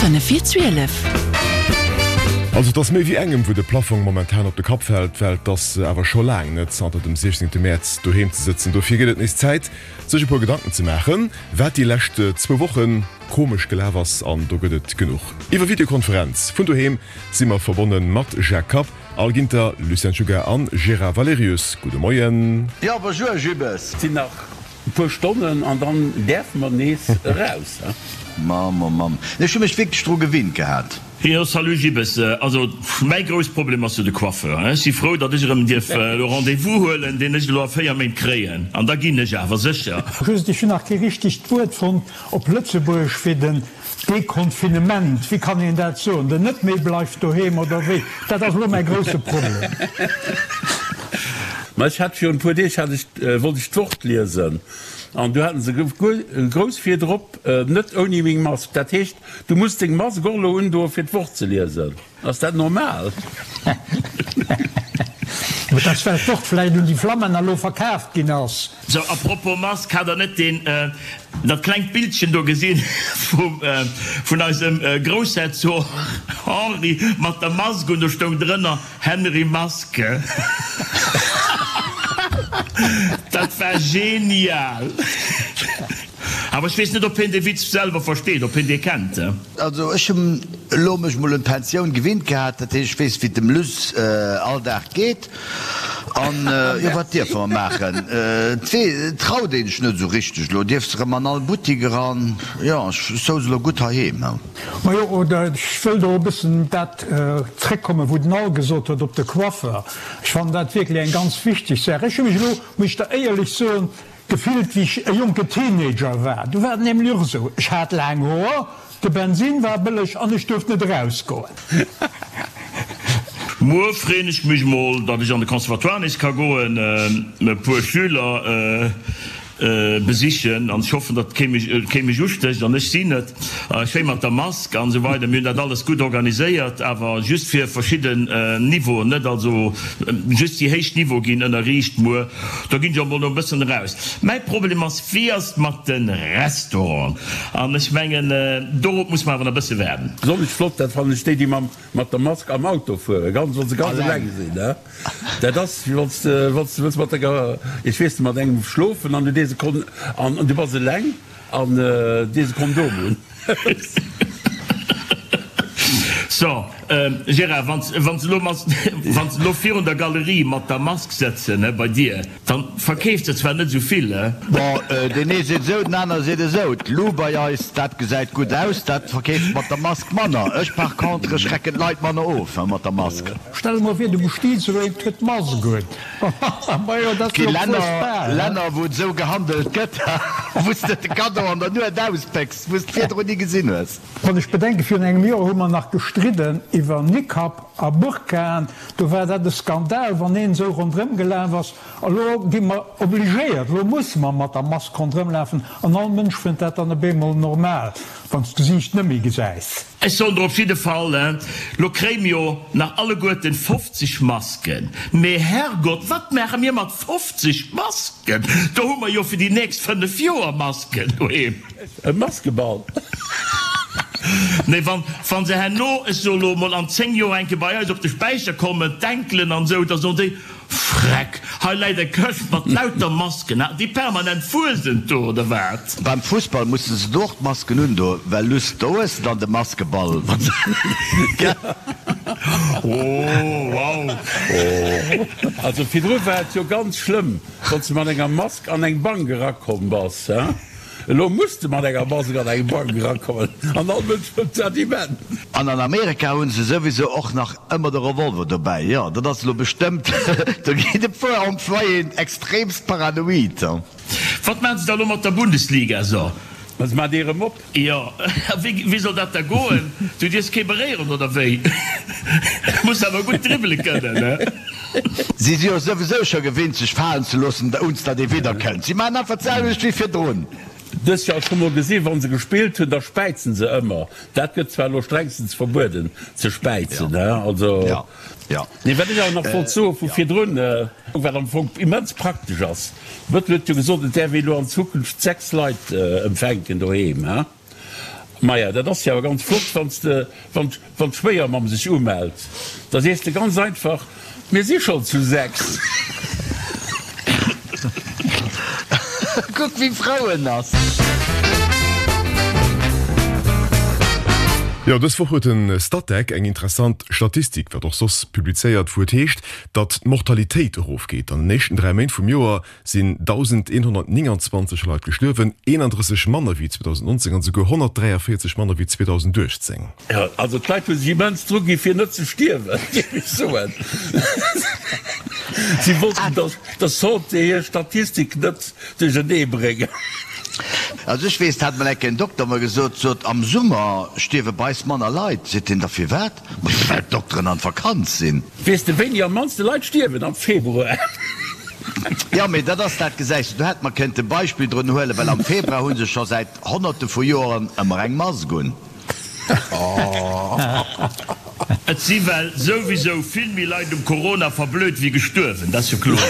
5 vir 12. Also et ass méi wéi engem, wou de Plaffong momentan op de Kapp fält, well et ass awer scho laang net zanter dem 16 Mäerz doheem ze sëtzen. Dofir gëtt et nees Zäit, sech e puer Gedanken ze maachen, wat déi lescht zwou Woche komesch gelaf ass. An do gëtt et genuch. Iwwer Videokonferenz vun doheem si mer verbonne mat Jacques Kapp, Al Ginter, Lucien Czuga an Gérard Valerius. Gudde Moien. Jo, bonjour Jibbes. Sinn nach E puer Stonnen an dann däerfe mer nees eraus. Mamm, oh Mamm, ech hu mech wierklech dru gewinnt gehat. Jo, salut Gibbes. Also mäi grouss Problem ass jo de Coiffeur. Ech si frou, datt ech erëm dierf elo Rendez-vous huelen, deen ech elo a 4 Méint kréien. An da ginn ech awer sécher. Just, ech hunn nach kee richtegt Wuert fonnt op Lëtzebuergesch fir den Deconfinement. Wéi kann een dat soen? Den net méi bleift doheem oder wéi? Dat ass elo mäi grousse Problem. Ma ech hat virun e puer Deeg hat ech, wollt ech d'Wort liesen an du haten se grouss virdrop, net ouni meng Mask. Dat heescht, du muss deng Mask och elo undoe fir d'Wort ze liesen. Ass dat normal? Et ass well d'Wort vläicht un déi Flammänner elo verkaaft ginn ass. Sou, a propos Mask, hat der net deen, dat klengt Bildchen do gesinn vum, vun eisem Groussherzog Henri mat der Mask un? Do stoung drënner, Henry Maske. Dat war genial! Awer ech weess net, ob hien dee Witz selwer versteet, ob hien dee kennt. Also ech hunn elo mech mol un d'Pensioun gewinnt gehat, dat heescht ech weess wéi et dem Luss all Dag geet. An jo wat dierfe mer maachen? Et traut een sech net esou richteg elo, dierfs erëm an all Buttik eran. Jo ech souz elo gutt heiheem. Majo, oder ech wëll do e bëssen dat zréckkommen, wou den Al gesot huet op de Coiffeur. Ech fannen dat wierklech eng ganz wichteg Saach. Ech hu mech elo, muss ech der éierlech soen, Gefillt wéi ech e jonke Teenager war. Du war et nämlech och esou, ech hat laang Hoer, de Bensin war bëlleg an ech duerft net erausgoen. Muer freen ech mech mol, datt ech an de Conservatoire nees ka goen, e puer Schüler besichen an ech hoffen, datt kee mech ustécht an ech si net. Schéi mat der Mask an esou weider. Mir hunn dat alles gutt organiséiert, awer just fir verschidden Niveauen, net also just déi héich Niveaue ginn ënnerriicht muer. Do ginn ech och mol no e bëssen eraus. Mäi Problem ass, wéi ass et mat de Restauranten? An ech mengen, dorop muss mer awer nach e bësse waarden. Besonnesch flott, dat fannen ech déi, déi mam mat der Mask am Auto fueren, ganz wann se ganz eleng sinn, ne? Dat ass wéi wann s de wann s de wëlls mat denger, ech weess net, mat engem schlofen an du dees e Kon an du bass eleng. An dees e Kondom un. So, Gérard, wann se elo virun der Galerie mat der Mask sëtzen, he, bei dir, dann verkeefs de zwar net esou vill, he? Bon, deen ee seet esou, den aner seet esou. D'Lou bei eis, dat gesäit gutt aus, dat verkeeft mat der Mask manner. Ech par contre, ech schrecken d'Leit manner of, he, mat der Mask. Stell mer vir, du bestiets elo een, huet d'Mask un. Et gi Länner, wou et esou gehandelt gëtt, wou s de de Kaddo an der Nuet auspécks, wou s de virdrun ni gesinn hues. Wann ech bedenken, virun engem Joer hu mer nach gestridden iwwer Nikab a Burkaen, do war dat e Skandal, wann een esou ronderëm gelaf ass. Elo gi mer obligéiert, elo musse mer mat der Mask ronderëm lafen an all Mënsch fënnt dat dann op eemol normal, wann s d'Gesiicht net méi gesäis. Ech soen der op jidde Fall, lo kréie mir jo nach alleguerten 50 Masken. Mee Herrgott, wat maache mir mat 50 Masken? Do hu mer jo fir déi nächst 5 Joer Masken doheem. E Maskeball? Nee, wann, wann se herno, ech soe lo mol an 10 Joer eng Kéier bei eis op de Späicher kommen, d'Enkelen an esou, da soen déi, Freck, hei läit eng Këscht mat lauter Masken, hat déi permanent Fuesent do oder wat? Beim Fussball mussen se do och d'Masken undoen, well luss do hues de dann de Maskeball. Oh wow. Also virdru war et jo ganz schlëmm, wann s de mat enger Mask an eng Bank erakomm bass. Elo muss de mat enger Mask an eng Bank erakommen an all Mënsch wëllt dat immens. An an Amerika hunn se souwisou och nach ëmmer de Revolver dobäi. Jo, dat ass elo bestëmmt, do ginn e puer Employéen extremst paranoid. Wat maachen se da elo mat der Bundesliga? So. Ma se maachen déi erëm op. Jo, a wéi soll dat da goen? Du dierfs kee beréieren, oder wéi? Muss awer gutt dribbele kënnen, ne? Si si jo souwisou scho gewinnt sech falen ze loossen, ounst datt ee widderkënnt. Si maachen einfach d'selwecht wéi virdrun. Dës Joer scho mol gesi wann se gespillt hunn, da späizen se ëmmer. Dat gëtt zwar elo strengstens verbueden ze späizen, he, also. Nee, wat ech awer nach wollt soe vu virdrun, wat am Fong immens praktesch ass, Bëttel huet jo gesot, et däerf ee elo an Zukunft 6 Leit empfänken doheem, he. Maja, dat ass jo awer ganz flott, wann s de, wann, wann d'Schwéiermamm sech umellt, da sees de ganz einfach, Mir si schonn zu 6. Kuck wéi frou en ass. Jo, dës Woch huet de Statec eng interessant Statistik, wat och soss, publizéiert, wou et heescht, datt d'Mortalitéit erofgeet. An den éischten 3 Méint vum Joer sinn 1.129 Leit gestuerwen, 31 manner wéi 2019 an esouguer 143 manner wéi 2018. Jo, also d'Leit hu sech immens dru gi fir net ze stierwen, géif ech soen. Si wollten der der Santé hir Statistik net duerchernee bréngen. Also ech weess, dat hat mol eng Kéier en Dokter mer gesot, sot, am Summer stierwe bei eis manner Leit. Seet hien, da firwat? Ma well d'Dokteren an d'Vakanz sinn. Weess de wéini am mannste Leit stierwen? Am Februar. Jo, mee dat ass dat, gesäis de, do hätt mer kënnte Beispill drun huelen, well am Februar hu se scho säit Honnerte vu Joeren ëmmer eng Mask un. Et si well souwisou vill méi Leit um Corona verblöd wéi gestuerwen, dat ass jo kloer.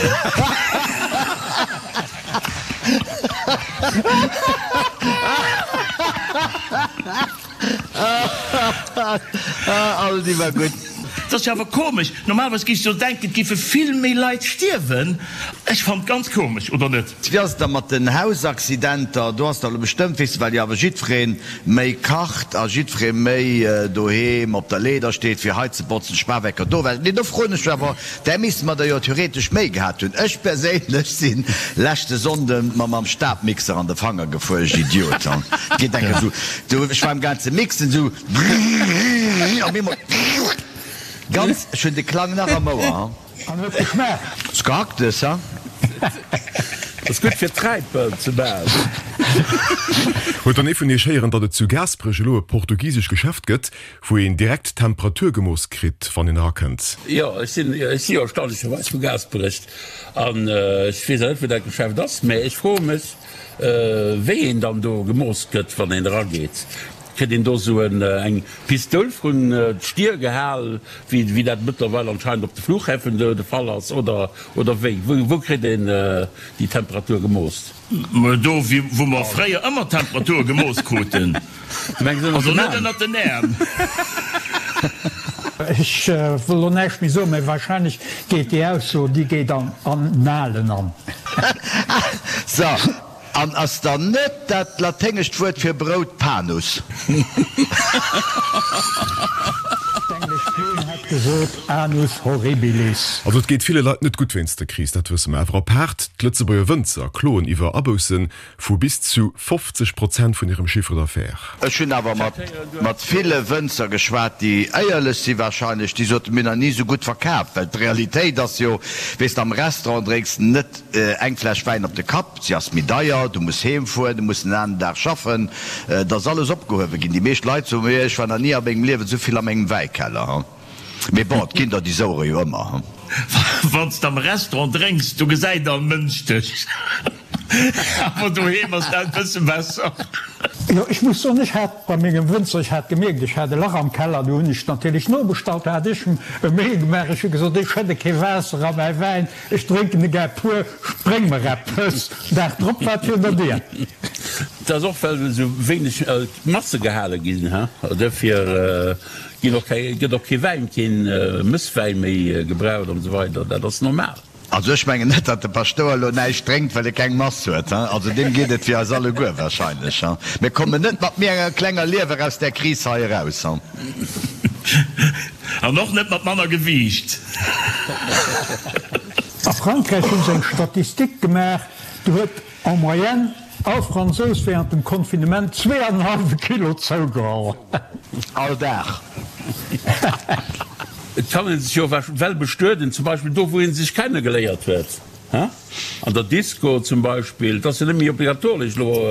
All déi war gutt. Dat ass jo awer komesch. Normalerweis géifs du jo denken, et géife vill méi Leit stierwen. Ech fannen et ganz komesch, oder net? Wéi ass et da mat den Hausaccidenter? Do ass der elo bestëmmt, weess de, well jo awer jiddweree méi kacht a jiddweree méi doheem op der Leeder steet fir hei ze botzen, Spawecker do well. Nee, do froen ech mech awer, där misste mer der jo theoretesch méi gehat hunn. Ech perséinlech si leschte Sonnde mer mam Stabmixer an de Fanger gefuer, ech Idiot. Geet enke sou, du, ech war am gaang ze mixen, sou brrrr, op eemol ganz, ech hunn de Klang nach am Ouer. An huet geschmaacht. S Gehacktes, ha? Ass gutt fir Träipel ze maachen. Huet dann ee vun iech héieren, datt et zu Gaasperech elo e portugisesch Geschäft gëtt, wou een direkt d'Temperatur gemooss kritt, wann een erakënnt? Jo, ech sinn, ech si jo erstaunlecherweis vu Gaasperech an ech weess awer net, wou dat Geschäft ass, mä ech froe mech, wéi een dann do gemooss gëtt, wann een erageet. Kritt een do sou eng Pistoul vrun d'Stier gehal, wéi dat mëttlerweil anscheinend op de Flughäfen de Fall ass, oder oder wéi? Wou kritt een déi Temperatur gemooss? Mä do wou mer fréier ëmmer d'Temperature gemooss kruten. Also net ënnert den Äerm. Ech wëll lo näischt méi soen, mä wahrscheinlech geet déi Ausso, déi geet an Annalen an. So, An ass dann net dat laténgescht Wuert fir Brout panus? D'englesch Queen hätt gesot, Anus horribilis. Also et geet ville Leit net gutt wéinst der Kris, dat wësse mer. Awer apaart d'Lëtzebuerger Wënzer kloen iwwer Abousse vu bis zu 50 Prozent vun hirem Chiffre d'affaires. Ech hunn awer mat mat ville Wënzer geschwat, déi éierlech si wahrscheinlech, déi soten, mir hunn nach ni esou gutt verkaaft. Well d'Realitéit ass jo, weess de, am Restaurant drénks de net eng Fläsch Wäin op de Kapp, Si ass méi deier, du muss heem fueren, du muss den aneren Dag schaffen, et ass alles opgehuewe ginn. Déi meescht Leit soen mir, ech war nach ni a mengem Liewen esou vill a mengem Wäikeller. Mee bon, et ginn der déi souere jo ëmmer. Wann s de am Restaurant drénks, do gesäit all Mënsch dech, awer doheem ass dat e bësse besser. Jo, ech muss soen, ech hat bei mengem Wënzer, ech hat gemierkt, ech hat e Lach am Keller, du hunn ech natierlech nobestallt, hat ech e Mail gemaach, ech hu gesot, ech schëdde kee Waasser a mäi Wäin, Ech drénken e gär pur, spréng mer eppes. Dag drop war et virun der Dier. Dat ass och well esou wéineg Masse gehale ginn, duerfir ginn och keng, gëtt och kee Wäin, keen Mësswäin méi gebraucht an esou weider. Dat ass normal. Also ech mengen net, datt de Paschtouer elo näischt drénkt, well e keng Mass huet. Also deem geet et wéi eis alleguer wahrscheinlech. Mir kommen net mat méi enger klenger Liewer aus där Kris hei eraus. An och net mat manner Gewiicht. A Frankräich hu se eng Statistik gemaach, do huet en moyenne all Fransous während dem Confinement zweeanenhallwe Kilo zougeholl. All Dag. Et kann ee sech jo well bestueden, zum Beispill do wou ee sech kennegeléiert huet. An der Disco zum Beispill, et ass jo net méi obligatoresch elo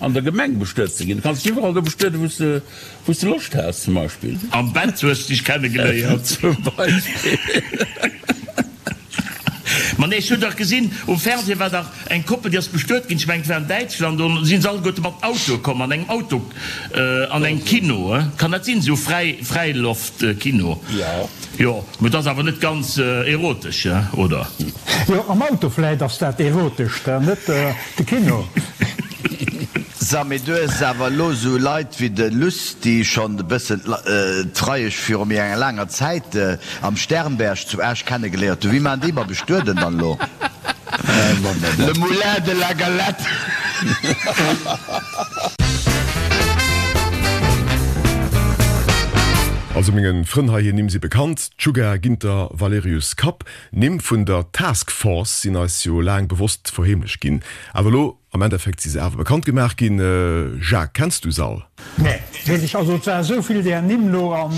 an der Gemeng bestuet ze ginn. Du kanns dech iwwerall do bestueden, wou s de, wou s de Loscht has zum Beispill. Am Bett hues de dech kennegeléiert. Zum Beispill. Ma nee, ech hunn dach gesinn, um Fernseh war dach eng Koppel, déi ass bestuet ginn, ech mengen et war an Däitschland, do si se alleguerte mat Autoe komm, an engem Auto, an engem Kino, kann dat sinn, esou Fräi, Fräiloftkino? Jo. Jo, mee et ass awer net ganz erotesch, oder? Jo, am Auto vläit ass dat erotescht, net de Kino. Sa, mee du hues awer elo esou Leit wéi de Luss, déi schonn e bëssen d'Freiesch viru méi enger laanger Zäit am Sternberg zu Esch kennegeléiert hunn. Wéi maachen déi mat Bestueden dann elo? Le moulin de la galette! Also mengen Frënn hei, hir Nimm si bekannt, Czuga, Ginter, Valerius, Kapp. Nimm vun der Task Force sinn eis jo laang bewosst verheemlecht ginn, awer elo am Endeffekt si se awer bekannt gemaach ginn. Jacques, kenns du s'all? Nee, weess ech. Also et war esou vill där Nimm lo an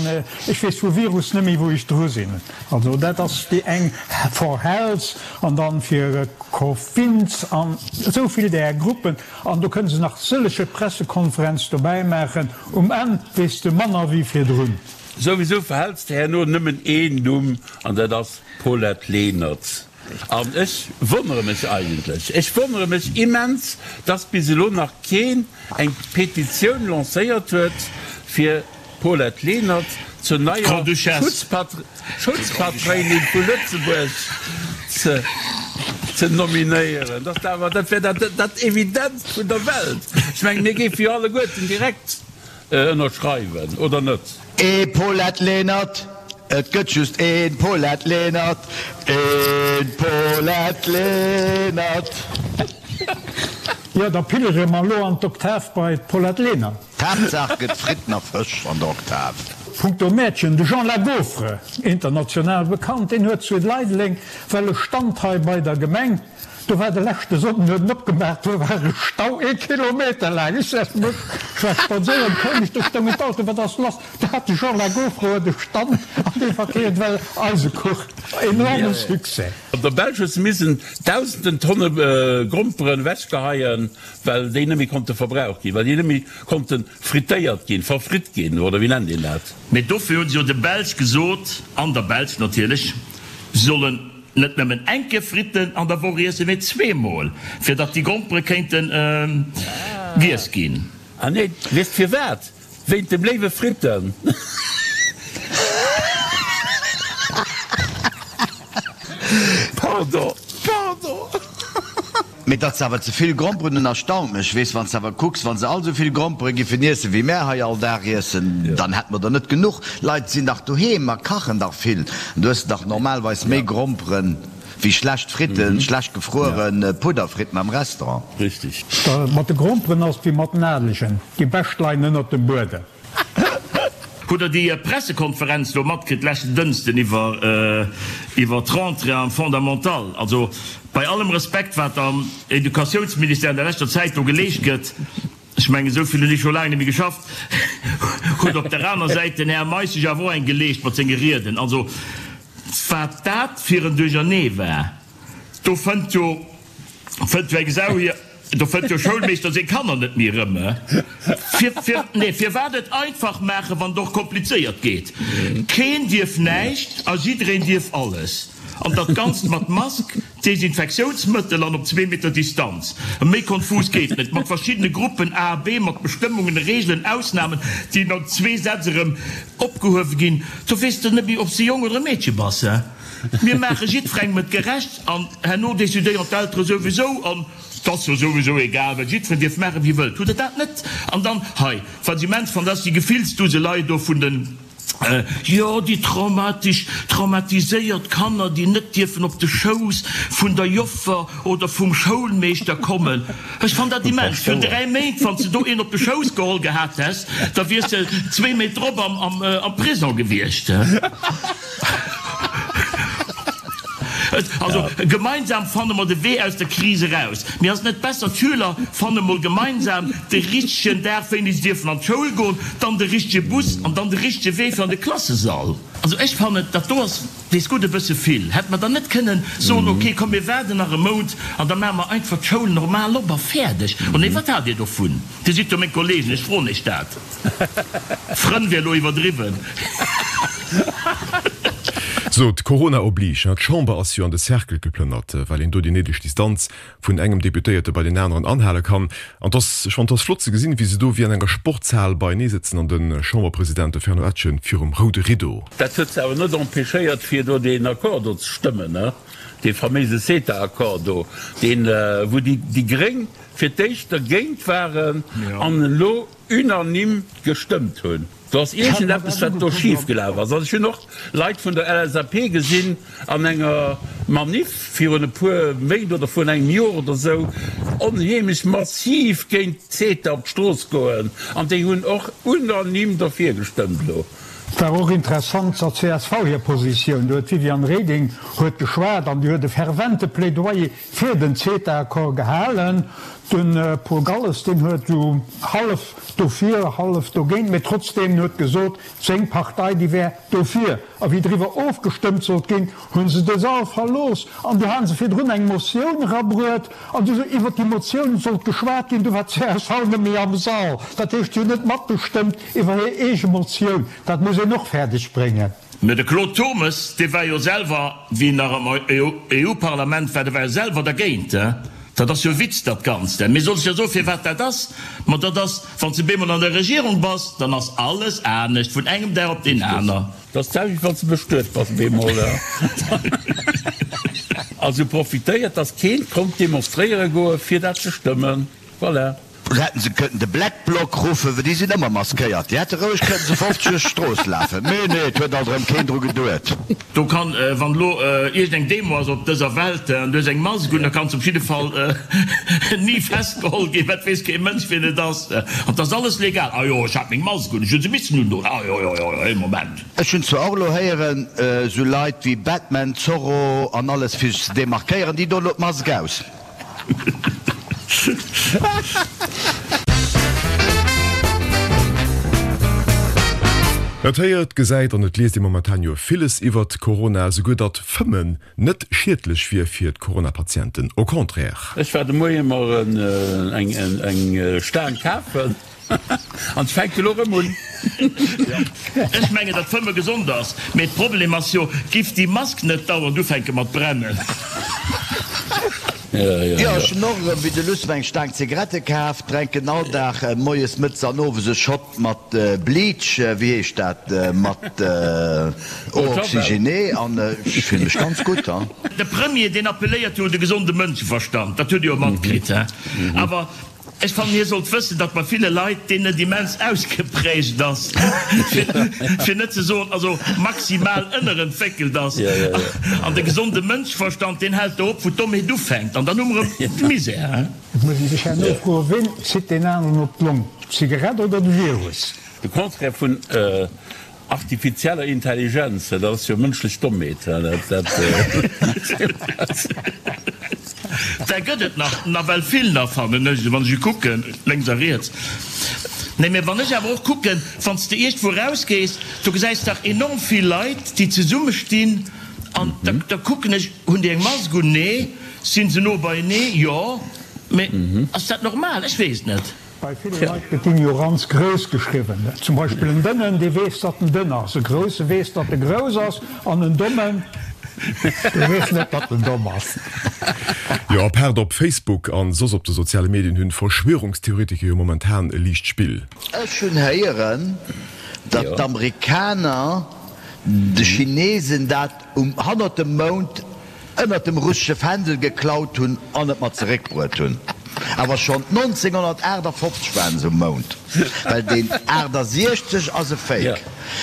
ech weess vu Virus net méi wou ech dru sinn. Also dat ass déi eng for Health an dann fir Cofins an esou vill där Gruppen an do kënne se nach sëllege Pressekonferenz dobäi maachen. Um Enn weess de manner wéi virdrun. Souwisou verhäls de herno nëmmen een Numm an dat ass Paulette Lenert. An ech wonnere mech eigentlech, ech wonnere mech immens, dass bis elo nach keen eng Petitioun lancéiert huet, fir d'Paulette Lenert zur neier Schutzpatréinin vu Lëtzebuerg ze nominéieren. Dat awer, dat wär dat Evidentst vun der Welt. Ech mengen, mir géife jo alleguerten direkt Ënnerschreiwen, oder net? Ee Paulette Lenert, et gëtt just een Paulette Lenert, een Paulette Lenert. Jo, da pillere mer elo an d'Oktav bei d'Paulette Lenert. D'Haaptsaach gëtt Fritten a Fësch an der Oktav. Punkto Mäertchen, de Jean Lagaufre, international bekannt, deen huet zu Leideleng well e Stand hei bei der Gemeng. Do war de leschte Sonnden, huet en opgemaach, do war e Stau ee Kilometer laang. Ech sech mech, ech war spadséieren, koum ech, do stoungen d'Autoen, wat ass lass? Do hat de Jean Lagaufre huet e Stand an dee verkeeft well Eisekuch. Enorme Succès. An der Belsch hu se missen dausenden Tonne Gromperen ewechgeheien, well déi net méi konnte verbraucht ginn, well déi net méi konnte frittéiert ginn, verfritt ginn, oder wéi nennt een dat? Mee dofir hu se jo de Belsch gesot, an der Belsch natierlech, se sollen Net nëmmen eng Kéier Fritten an der Woch iessen, mee zweemol, fir datt déi Grompere kéinte giess ginn. Ah nee, weess firwat? Wéint dem léiwe Fritten. Pardon, pardon. Mee datt se awer ze vill Gromperen hunn erstaunt mech. Weess, wann s de awer kucks, wa se all esou vill Grompere giffen iessen, wéi mär hei all Dag iessen, dann hätte mer der net genuch. Leit sinn dach doheem a kachen dach vill. An du hues dach normalweis méi Gromperen wéi schlecht Fritten, schlecht gefruere Pudderfritten am Restaurant. Richtig. Mat de Gromperen ass et wéi mat den Adelegen, déi bescht leien ënnert dem Buedem. Hutt der déi Pressekonferenz do matkritt leschten Dënschden iwwer iwwer d'Rentrée am Fondamental? Also bei allem Respekt wat am Educatiounsministère an der leschter Zäit do geleescht gëtt, ech mengen esou vill hunn ech scho laang net méi geschafft, huet op der aner Säit den Här Meisch sech awer och eng geleescht mat senge Rieden. Also wat dat fir en Duerchernee war, do fënnt jo Fënnt jo eng Sau hier, do fënnt jo Schoulmeeschter seng Kanner net méi erëm. Fir, fir, nee, firwat et einfach maachen, wann et och komplizéiert geet? Keen dierf näischt a jiddereen dierf alles. An dat Ganzt mat Mask, Desinfektiounsmëttel an op zwee Meter Distanz. Méi konfus geet net. Mat verschiddene Gruppen A a B, mat Bestëmmungen, Reegelen, Ausnamen, déi no zwee Sätz erëm opgehuewe ginn. Do weess de net méi, ob s de Jong oder e Meedche bass. Mir maache jiddwerengem et gerecht an herno decidéieren d'Eltere souwisou an 't ass jo souwisou egal, well jiddwereen dierf maachen, wéi e wëllt. Hutt Der dat net? An dann hei, wat ech immens fannen, dat ass déi Gefillsduselei do vun den, jo, déi traumatisch, traumatiséiert Kanner, déi net dierfen op de Schouss vun der Joffer oder vum Schoulmeeschter kommen. Ech fann dat immens. Virun 3 Méint, wann s de do een op de Schouss geholl gehat häss, da wiers de zwee Méint drop am Prison gewiescht. Also, gemeinsam fanne mer de Wee aus der Kris eraus. Mee ass et net besser, d'Schüler fanne mol gemeinsam de richtegen Dag, wéini se dierfen an d'Schoul goen, dann de richtege Bus an dann de richtege Wee fir an de Klassesall? Also ech fannen, dat do ass, weess gutt, e bësse vill. Hätte mer dann net kënnen soen, ok, komm mir waarden nach e Mount an da maache mer einfach d'Schoul normal op a fäerdeg? Oh nee, wat hat Dir dovun? Dir sidd jo meng Kollegen, ech froen Iech dat. Frënn wier elo iwwerdriwwen. Sot, Corona oblige, d'Chamber ass jo an de Cercle geplënnert, well een do déi néideg Distanz vun engem Deputéierte bei deen aneren anhale kann. An 't ass, ech fannen, 't ass flott ze gesinn, wéi se do wéi an enger Sportshal beienee sëtzen an de Chamberpresident, de Fernand Etgen, virum roude Rideau. Dat huet se awer net empêchéiert, fir do deen Accord do ze stëmmen, dee faméise CETA-Accord do, deen, wou déi Gréng fir d'éischt dergéint waren an elo unanime gestëmmt hunn. Do ass iergendeppes, wat do schif gelaf ass. Also ech hunn och Leit vun der LSAP gesinn an enger Maniff virun e puer Méint oder virun engem Joer oder esou, onheemlech massiv géint CETA op d'Strooss goen an déi hunn och unanime derfir gestëmmt elo. Et war och interessant zur csv hir Positioun. Do huet d'Viviane Reding huet geschwat an déi huet e fervente Plädoyer fir den CETA-Accord gehalen. De Paul Galles, deen huet esou hallef dofir, hallef dogéint, mee trotzdeem, en huet gesot, seng Partei, déi wär dofir. A wéi driwwer ofgestëmmt sollt ginn, hu se de Sall verlooss an du hate se virdrun eng Motioun erabruet an du iwwer déi Motioun sollt geschwat ginn, du war d'CSV net méi am Sall. Dat heescht, si hunn net matgestëmmt iwwer hir eege Motioun. Dat muss een och fäerdeg bréngen. Mä de Claude Turmes, dee war jo selwer, wéi en nach am EU-Parlament war, dee war jo selwer dergéint. Dat ass jo e Witz, dat Ganzt. Mee soll ech der soen, firwat dat ass? Ma dat ass, wann s de bemol an der Regierung bass, dann ass alles anescht, vun engem Dag op deen aner. Dat ass d'selwecht, wann s de bestuet bass bemol. Also profitéiert, dass keen konnt demonstréiere goen, fir dat ze stëmmen. Voilà. Oder hätten se kënnten de Black Bloc ruffen, well déi sinn ëmmer maskéiert. Déi hätte roueg kënnten zu 50 duerch d'Strooss lafen. Mee nee, et huet alt erëm keen dru geduet. Do kann, wann elo iergend eng Demo ass op dëser Welt an du hues eng Mask un, da kanns op jidde Fall ni festgeholl ginn, well et weess kee Mënsch wien et ass. An et ass alles legal. Ah jo, ech hat meng Mask un, ech hu se missen undoen. Ah jo, jo, jo, ee Moment. Ech hunn zwar och elo héieren, esou Leit wéi Batman, Zorro an alles fir sech ze demarkéieren, déi doen elo d'Mask aus. Et héiert, gesäit an et liest ee momentan jo villes iwwert Corona, esouguer datt Fëmmen net schiedlech wier fir d'Corona-Patienten, au contraire. Ech war de Moie mer eng Staang kafen. An et fänkt elo rëm un. Ech mengen datt Fëmme gesond ass, mee d'Problem ass jo, giff déi Mask net dauernd ufänke mat brennen. Jo, ech hunn och erëm wéi de Luss mer eng Staang Zigarette kaf, drenken all Dag moies, mëttes an owes e Shot mat Bleach, wéi heescht dat, mat Eau oxygénée an ech fillen mech ganz gutt. De Premier deen appelléiert jo un de gesonde Mënscheverstand, dat hutt Dir jo matkritt, he? Awer Ech fannen, hie sollt wëssen, datt bei ville Leit deen net immens ausgeprägt ass, fir net ze soen, also maximal ënnerentwéckelt ass. An de gesonde Mënschverstand, deen hält do op, wou d'Dommheet ufänkt. An dann hu mer erëm de Misär. Et muss ee sech herno froen, Ween zitt deen aneren op d'Long, d'Zigarett oder de Virus? De Contraire vun Artifizieller Intelligenz, dat ass jo mënschlech Dommheet. Där gëtt et nach nawell vill nach, fannen ech, wann ech kucken, lénks a riets. Nee, mä wann ech awer och kucken, wann s de iergendwou erausgees, do gesäis dach enorm vill Leit, déi zesumme stinn an da da kucken ech, hunn déi eng Mask un? Nee. Sinn se no beienee? Jo. Mä ass dat normal? Ech weess et net. Bei ville Leit gëtt Ignoranz grouss geschriwwen. Zum Beispill en Dënnen, dee weess, datt en dënn ass, e Grousse weess, datt e grouss ass, an en Dommen, dee weess net, datt en domm ass. Jo, apaart op Facebook an soss op de soziale Medien hunn Verschwörungstheoretiker jo momentan e liicht Spill. Ech hunn héieren, datt d'Amerikaner de Chinesen dat um hannert dem Mound ënnert dem russesche Fändel geklaut hunn an et mat zeréckbruet hunn. Awer schonn 1958 waren se um Mound, well deen 68 ass e Fake.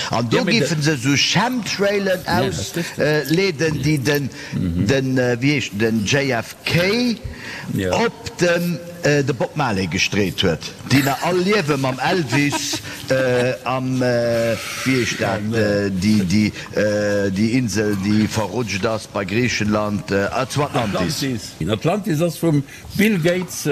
An do géife se esou Chemtrailen ausleeden, déi den, den, wéi heescht en, den JFK op den de Bob Marley gestreet huet, déi nach all liewe mam Elvis am, wéi heescht dat, déi, déi, Déi Insel déi verrutscht ass bei Griichenland, zu Atlantis. Atlantis ass vum Bill Gates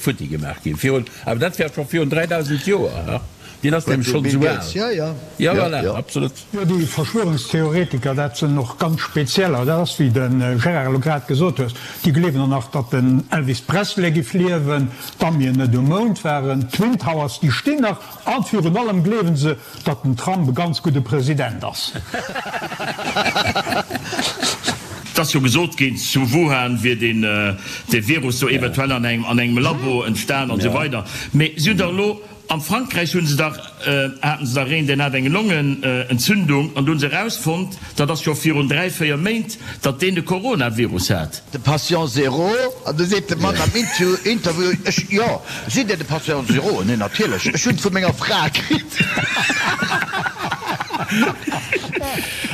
futti gemaach ginn, virun, awer dat war scho virun 3000 Joer. Deen ass nämlech schonn esou al. Ja, ja. Ja, voilà, absolut. Jo, déi Verschwörungstheoretiker, dat sinn och ganz spezieller. Dat ass, wéi de Gérard elo grad gesot hues, déi gleewen och nach, datt den Elvis Presley giff liewen, d'Amien net um Mound waren, d'Twin Towers, déi stinn nach, an virun allem gleewen se, datt den Trump e ganz gudde President ass. Et ass jo gesot ginn, zu Wuhan wier deen dee Virus do eventuell an engem an engem Labo entstan an esou weider. Mee si hunn dach elo am Frankräich hu se dach haten se dach een, deen hat eng Longenentzündung an do hu se erausfonnt, dat ass scho virun 3, 4 Méint, datt deen de Coronavirus hat. De Patient Zéro, an du seet de Mann am Interview, ech, jo, sidd Dir de Patient Zéro? Nee, natierlech, ech hunn et vu menger Fra kritt.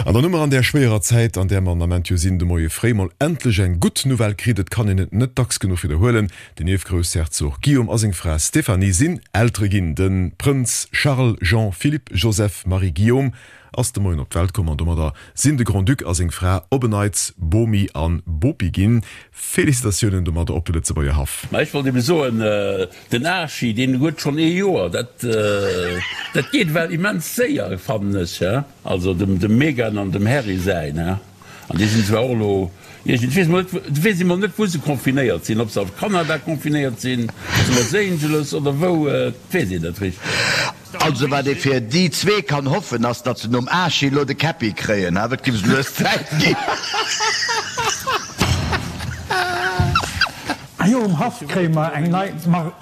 An dann hu mer an där schwéierer Zäit, an där mer an Ament jo sinn, de Moie fréi mol endlech eng gutt Nouvelle kritt. Et kann een et net dacks genuch widderhuelen, Den Ierfgroussherzog Guillaume a seng Fra Stéphanie sinn Eltere ginn. De Prënz Charles Jean Philippe Joseph Marie Guillaume ass de Moien op d'Welt komm an domadder sinn de Grand-Duc a seng Fra op en Neits Bomi an Bopi ginn. Félicitatiounen domadder op de Lëtzebuerger Haff. Ma ech wollt ebe soen, den Archie, deen huet schonn ee Joer, dat dat geet ewell immens séier, fannen ech, he. Also dem dem Meghan an dem Harry säin, he. An déi sinn zwar och elo iergend, weess mol net, weess ee mol net wou se confinéiert sinn, ob se a Kanada confinéiert sinn, zu Los Angeles oder wou, et weess een net richteg. Also wat ee fir déi zwee kann hoffen ass, datt se nom Archie elo de Käppi kréien, awer et giff lues Zäit ginn. Ah jo, um Haff kréie mer eng nei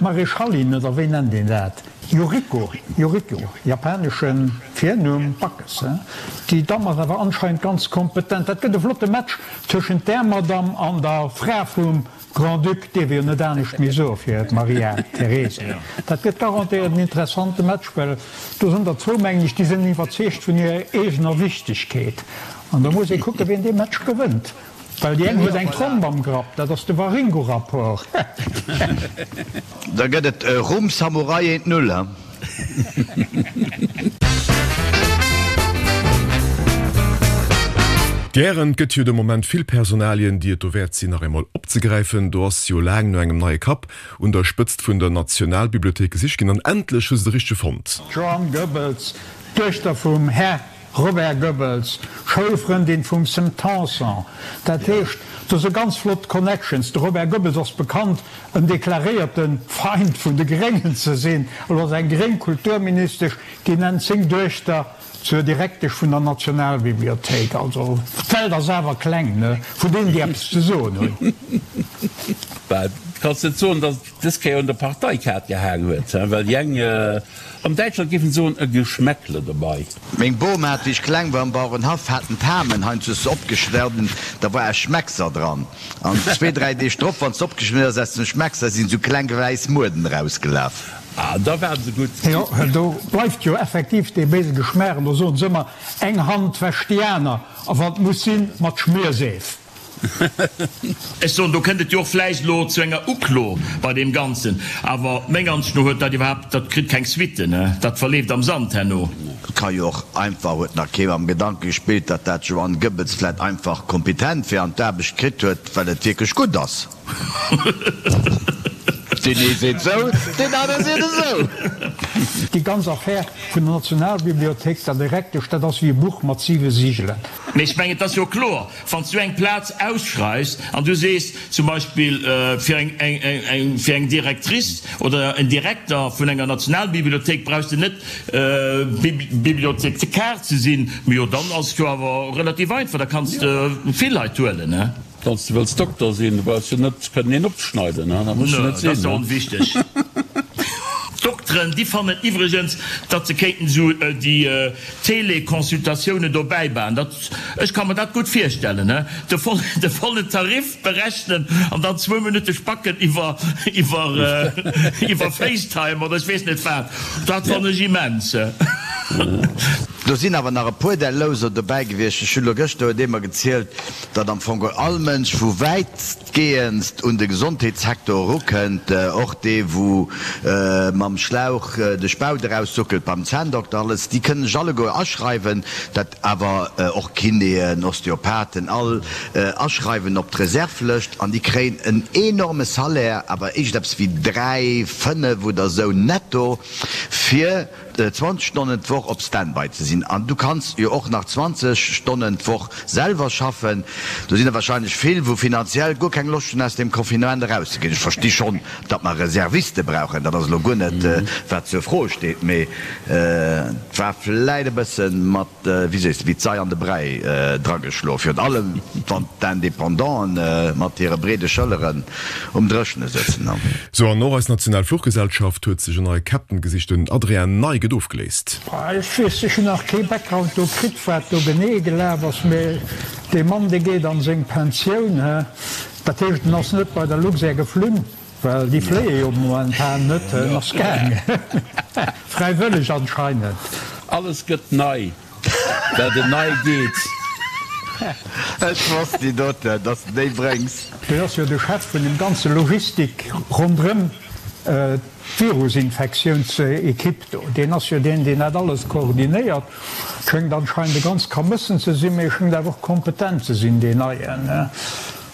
Maréchalin, oder wéi nennt een dat? Yuriko, Yuriko, japanesche Virnumm, Backes, he? Déi Damm ass awer anscheinend ganz kompetent. Dat gëtt e flotte Match tëschent där Madamm an der Fra vum Grand-Duc, dierf ee jo net anescht méi soe fir d'Maria Teresa. Dat gëtt garantéiert en interessante Match, well do sinn der zwou, mengen ech, déi sinn iwwerzeegt vun hirer eegener Wichtegkeet. An da muss ee kucken, wien dee Match gewënnt. Well déi eng huet eng Tromp am Grapp, dat ass de Waringo-Rapport. Da gëtt et Rum Samurai eent Null, he? Gären. Et gëtt jo de Moment vill Personalien, déi et dowäert sinn, nach eemol opzegräifen. Do ass jo laang no engem neie Kapp un der Spëtzt vun der Nationalbibliothéik gesicht ginn an endlech hu se de richtege fonnt. D'Joanne Goebbels, d'Duechter vum Här Robert Goebbels, Schoulfrëndin vum Sam Tanson. Dat heescht, do si ganz flott Connections. De Robert Goebbels ass bekannt, en deklaréierte Feind vun de Gréngen ze sinn. Elo ass eng gréng Kulturministesch, déi nennt seng Duechter zur Direktesch vun der Nationalbibliothéik. Also, d'Welt ass awer kleng, ne, vun deenen, déi eppes ze soen hunn. Bah, kanns net soen, datt et dës Kéier un der Parteikaart gehaang huet, well déi eng, An Däitschland géifen se soen, e Geschmäckle dobei. Meng Bom hat, wéi ech kleng war, am Bauerenhaff haten d'Hamen heiansdo se opgeschnidden, da war e Schmeckser dran. An zwee, dräi Deeg drop, wann se opgeschnidden ass aus dem Schmeckser, sinn esou kleng wäiss Mueden erausgelaf. Ah, da waren se gutt. Jo, do bleift jo effektiv dee béise Geschmaach. An do soen se ëmmer, eng Hand wäscht déi aner, a wann et muss sinn, mat Schmierseef. Ech soen, do kënnt et jo och vläicht elo zu enger Uklo bei deem Ganzen. Awer meng Ansicht no huet dat iwwerhaapt, dat kritt keng Suitten, dat verleeft am Sand herno. Et ka jo och einfach, huet nach kee mam Gedanke gespillt, datt dat Joanne Goebbels vläit einfach kompetent wär an d'Aarbecht kritt huet, well et wierklech gutt ass. Deen ee seet sou, deen anere seet esou. Déi ganz Affär vun der Nationalbibliothéik, der Direktesch, dat ass wéi e Buch mat siwe Sigelen. Mee ech mengen, et ass jo kloer, Wann s du eng Plaz ausschreifs an du sees zum Beispill fir eng fir eng Directrice oder en Direkter vun enger Nationalbibliothéik brauchs de net Bibliothékar ze sinn, mee jo dann ass et jo awer relativ einfach, da kanns de vill Leit huelen. Wann s de wëlls Dokter sinn, du brauchs jo net kënnen een opzeschneiden, dat muss jo net sinn. Dat ass jo onwichteg. D'Dokteren, déi fannen iwwregens, datt se kéinten esou déi Teleconsultatiounen dobäi baen. Dat, ech ka mer dat gutt virstellen, he, de voll, de vollen Tarif berechnen an dann zwou Minutte spacken iwwer, iwwer, iwwer Facetime oder ech weess net wat. Dat fannen ech immens. Do sinn awer nach e puer där Louser dobäi gewiescht. Ech hunn elo gëschter huet ee mer gezielt, datt am Fong all Mënsch wou wäitgehendst un de Gesondheetssecteur erukënnt, och dee wou mam Schlauch de Spaut eraussuckelt beim Zänndokter, alles, déi kënnen sech alleguer aschreiwen, dat awer och Kinéen, Osteopathen, all aschreiwen op d'Reservlëscht an déi kréien en enorme Salaire, awer iergendeppes wéi 3, 5 oder esou netto. fir 20 Stonnen d'Woch op Standby ze sinn. An du kanns jo och nach 20 Stonnen d'Woch selwer schaffen. Do sinn der wahrscheinlech vill, wou finanziell guer keng Loscht hunn, aus deem Confinement erauszeginn. Ech versti schonn, datt mer Reserviste brauchen, dat ass elo guer net, wat zur Fro steet, mee et war vläit e bësse mat, wéi sees de, wéi d'Sei an de Bräi drageschloen, virun allem wann d'Independanten mat hire breede Schëlleren um Dréchene sëtzen. Sou, an och eis national Fluchgesellschaft huet sech en neie Captain gesicht, den Adrien Ney gëtt ofgeléist. Ech weess, ech hunn nach kee Background do kritt, wat do genee gelaf ass, mee dee Mann, dee geet an seng Pensioun, he. Dat heescht, en ass net bei der Luxair geflunn, well déi fléie jo momentan net, en ass gaangen, fräiwëlleg anscheinend. Alles gëtt nei, dat en nei geet. Ech wosst déi doten, dass de déi bréngs. Deen ass jo de Chef vun dem ganze Logistik ronderëm d'Virusinfektiounsequipe do. Deen ass jo deen, deen dat alles koordinéiert. Schéngt anscheinend e ganz Kamëssen ze sinn, mee e schéngt awer och kompetent ze sinn, deen Neien.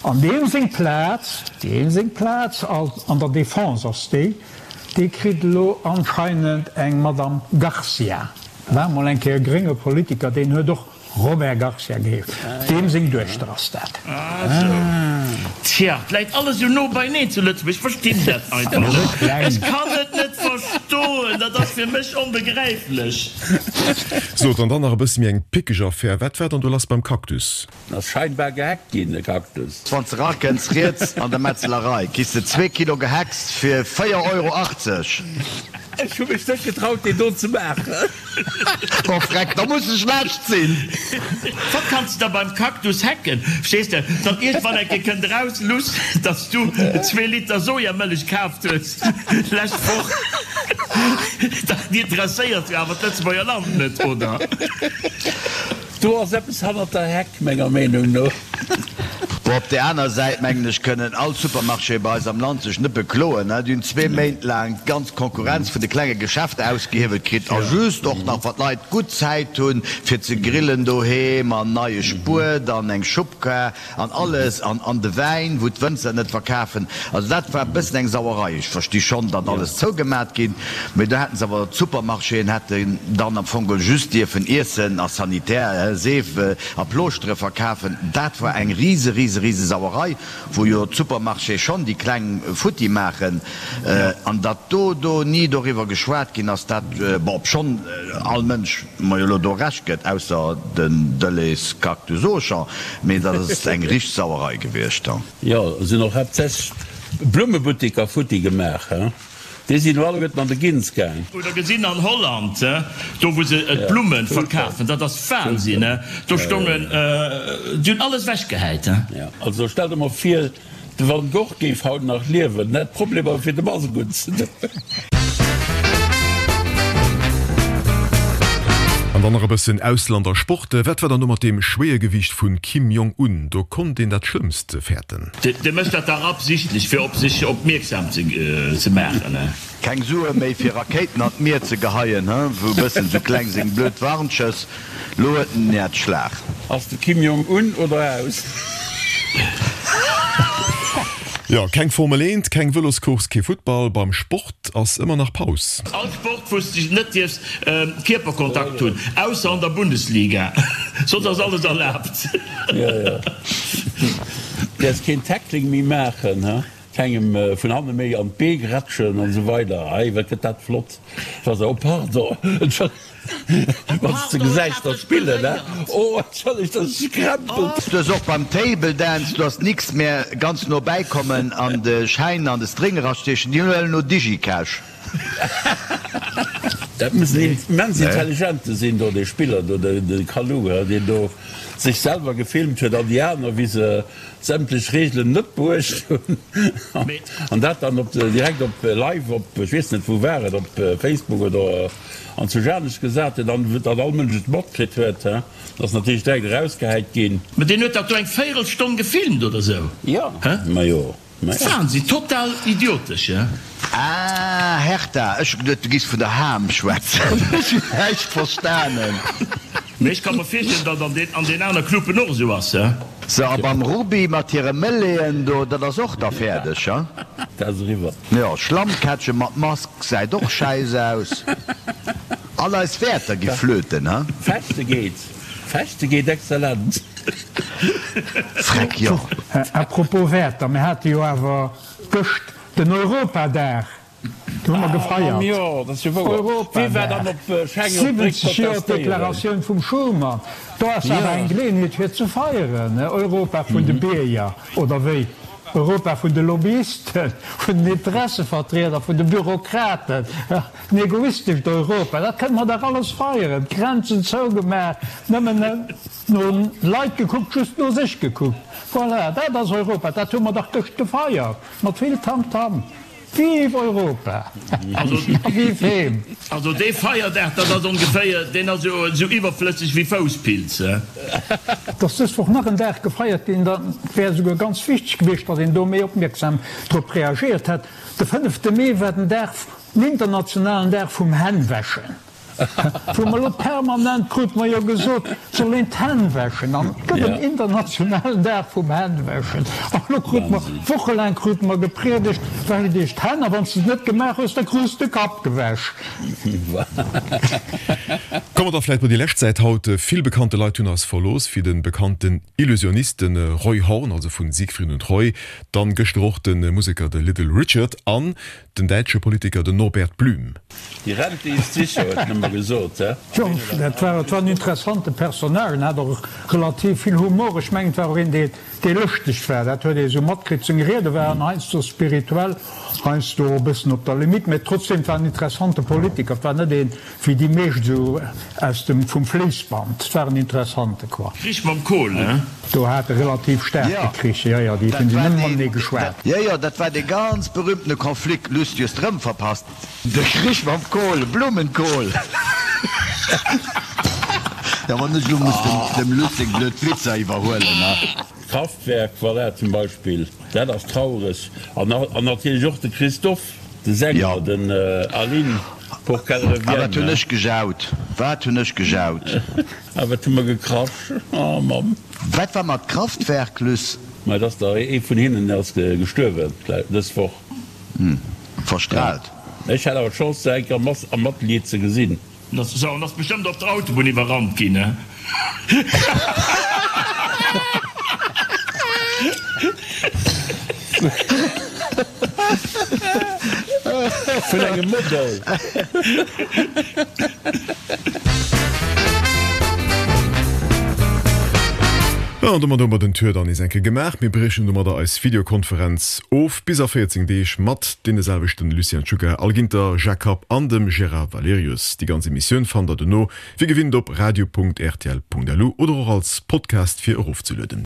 An deem seng Plaz, deem seng Plaz an der Defense ass déi, déi kritt elo anscheinend eng Madame Garcia. War mol eng Kéier e grénge Politiker, deen huet och Robert Garcia geheescht. Deem seng Duechter ass dat. Ah sou. Tja, 't läit alles esou no beineen zu Lëtzebuerg. Ech verstinn dat einfach net. Ech kann et net verstoen. Dat ass fir mech onbegräiflech. Sot, an dann nach e bësse méi eng pickeg Affär. Wat war dann do lass beim Cactus? Ass scheinbar gehackt ginn, de Cactus. Wann s de rakënns, riets an der Metzlerei, kriss de zwee Kilo Gehäcks fir 4 Euro 80. Ech hu mech net getraut deen do ze maachen. Oh freck, da muss e schlecht sinn. Wat kanns de da beim Cactus hacken? Verstees de, datt iergendwann eng Kéier kënnt eraus, Luss, datt s du zwee Liter Sojamëllech kaaft hues d'lescht Woch. Dat interesséiert jo awer d'Lëtzebuerger Land net, oder? Do ass eppes hannert der Heck, menger Meenung no. Bon, op där aner Säit, mengen ech, kënnen all Supermarchéë bei eis am Land sech net bekloen. Déi hunn zwee Méint laang d'ganz Konkurrenz vun de klenge Geschäfter ausgehiewelt kritt a just och nach, wa d'Leit gutt Zäit hunn, fir ze grillen doheem an neie Spuet an eng Schubkar An alles, an an de Wäin, wou d'Wënzer net verkafen. Also dat war e bëssen eng Sauerei. Ech versti schonn, datt alles zougemat ginn, mee do hätten se awer, d'Supermarchéen hätten dann am Fong geholl just dierfen Iessen a Sanitär, Seef a Plooschtere verkafen. Dat war eng rise, rise, rise Sauerei, wou jo d'Supermarchéë schonn déi Kleng futti maachen. An datt do do ni doriwwer geschwat ginn ass, dat, bon, obschonn all Mënsch mer jo elo do Recht gëtt, ausser den Deleuze Cactus Auchan, mee dat ass eng richteg Sauerei gewiescht. Jo, et sinn och haaptsächlech Blummebuttiker futti gemaach, he? Déi sinn elo alleguerten an de Gins gaang. Oder gesinn an Holland, do wou se d'Blummen verkafen, dat ass Wahnsinn, do stongen, déi hunn alles ewechgehäit. Also stell der mol vir, De Van Gogh géif haut nach liewen, hätt Problemer fir de Mask unzedoen. An dann nach e bëssen Ausland a Sport. Wat war dann do mat deem Schwéiergewiicht vun Kim Jong Un? Do konnt een dat Schlëmmst fäerten. Dee mécht dat dach absichtlech fir op sech opmierksam ze maachen. Keng Sue méi fir Rakéiten an d'Mier ze geheien, he? Wou bëssen sou kleng seng blöd Warnschëss. Lo huet en Häerzschlag. Ass de Kim Jong un oder aus? Jo, keng Formel 1, keng Vëloscourse, kee Futtball. Beim Sport ass ëmmer nach Paus. All Sport wou s de net dierfs Kierperkontakt hunn, ausser an der Bundesliga, soss ass alles erlaabt. Jo, jo. Däerfs keen Tackling méi maachen, he? Kengem vun hanne méi an d'Bee grätschen an esou weider. Ei, wat gëtt dat flott, wa se, oh pardon, entschëllegt, wann s de gesäis der spillen, he, oh entschëllegt, dat ass gekrempelt. Du hues och beim Table Dance, du hast nix mehr, ganz no bäi kommen an de Schäin an de String erastiechen, déi huelen elo Digicash. Dat muss en immens intelligente sinn do, dee Spiller do, de Kalou, he, deen do sech selwer gefilmt huet an déi aner, wéi se sämtlech Reegelen net beuecht hunn an dat dann op direkt op live op, ech weess net wou war et, op Facebook oder an zu Janesch gesat huet an datt all Mënsch et matkritt huet, he, ass natierlech direkt erausgehäit ginn. Mä deen huet dat do eng Véirelstonn gefilmt oder sou, Jo, he? majo, majo. Wahnsinn, total idiotesch, he? Ah, Hertha, ech hu geduet du giss vun der Ham schwätzen. Ech hunn näischt verstanen. Mee ech ka mer virstellen, datt an den an den aner Cluben och esou ass, he? Sou, a beim Ruby mat hire Mëlleeën do, dat ass och da fäerdeg, he? Dat ass eriwwer. Jo, Schlammkätche mat Mask gesäit och schäiss aus. All eis Wäerter gi flöten, he? Fechte geet, Fechte geet exzellent. Freck, jo. À propos Wäerter, mir hate jo awer gëscht den Europadag. Do hu mer gefeiert. Europadag, 70 Joer d'Deklaratioun vum Schuman. Do ass awer eng Geleeënheet fir ze feieren, Europa vun de Bierger, oder wéi? Europa vun de Lobbyisten, vun den Interessevertrieder, vun de Bürokraten, en egoistescht Europa, dat kënne mer dach alles feieren. D'Grenzen zougemaach, nëmmen no Leit gekuckt, just no sech gekuckt. Voilà, dat ass Europa, dat hu mer dach gëscht gefeiert, mat vill Tamtam. Vive Europa! A vive heem! Also dee Feierdag, dat ass ongeféier, deen ass jo esou iwwerflësseg wéi Fousspilz, he? Et ass dës Woch nach en Dag gefeiert ginn, da wär esouguer ganz wichteg gewiescht, datt een do méi opmierksam drop reagéiert hätt. De fënnefte Mee war den Dag, den internationalen Dag vum Hännwäschen. Wou mer elo permanent, krute mer jo gesot, soll een d'Hänn wäschen an et gëtt en internationalen Dag vum Hännwäschen. An elo krute mer, wochelaang krute mer gepriedegt, Wäscht iech d'Hänn a wann s de et net gemaach hues, da krus de Kapp gewäsch. Komme mer da vläit bei déi lescht Säit haut. Vill bekannte Leit hunn eis verlooss, wéi de bekannten Illusionist, de Roy Horn, also vu Siegfried und Roy, dann gëschter och de Museker de Little Richard an den däitsche Politiker den Norbert Blüm. Die Rente ist sicher, huet en ëmmer gesot, he? Jo, dat war, et war en interessante Personnage, en hat och relativ vill Humor. Ech mengen, et war och een, dee, dee lëschteg war. Dat huet ee sou matkritt. Seng Riede waren heiansdo spirituell, heiansdo och e bëssen op der Limite, mä trotzdem, et war en interessante Politiker. Et war net een, wéi déi meescht esou aus dem, vum Fléissband. Et war en interessante, quoi. Krich mam Kohl, ne? Do hat e relativ staarke Krich, jo, jo, déi hunn si nëmme matenee geschwat. Jo, jo, dat war dee ganz berühmtene Konflikt, Luss, du hues d'rëm verpasst. De Krich mam Kohl, Blumenkohl. Jo, wann ech elo muss dem Luss seng blöd Witzer iwwerhuelen, ne? Kraftwerk, voilà, zum Beispill, dat ass traureg. An natierlech och de Christophe, de Sänger, den Aline, pour qu'elle revienne. A wat hunn ech gejaut, wat hunn ech gejaut! A wat hu mer gekrasch, oh Mamm! Wat war mat Kraftwerk, Luss? Ma et ass der ee vun hinnen ass gestuerwen dës Woch. Verstrahlt. Ech hat awer d'Chance se eng Kéier am Atelier ze gesinn. Sou, en ass bestëmmt op der Autobunn iwwerrannt ginn, ne? Vun engem Model. Jo, an domat hu mer den Tour dann nees eng Kéier gemaach. Mir briechen domadder eis Videokonferenz of bis a 14 Deeg mat deene selwechten Lucien Czuga, Al Ginter, Jacques Kapp an dem Gérard Valerius. Déi ganz Emissioun fannt der dono wéi gewinnt op radio.rtl.lu oder och als Podcast fir erofzelueden.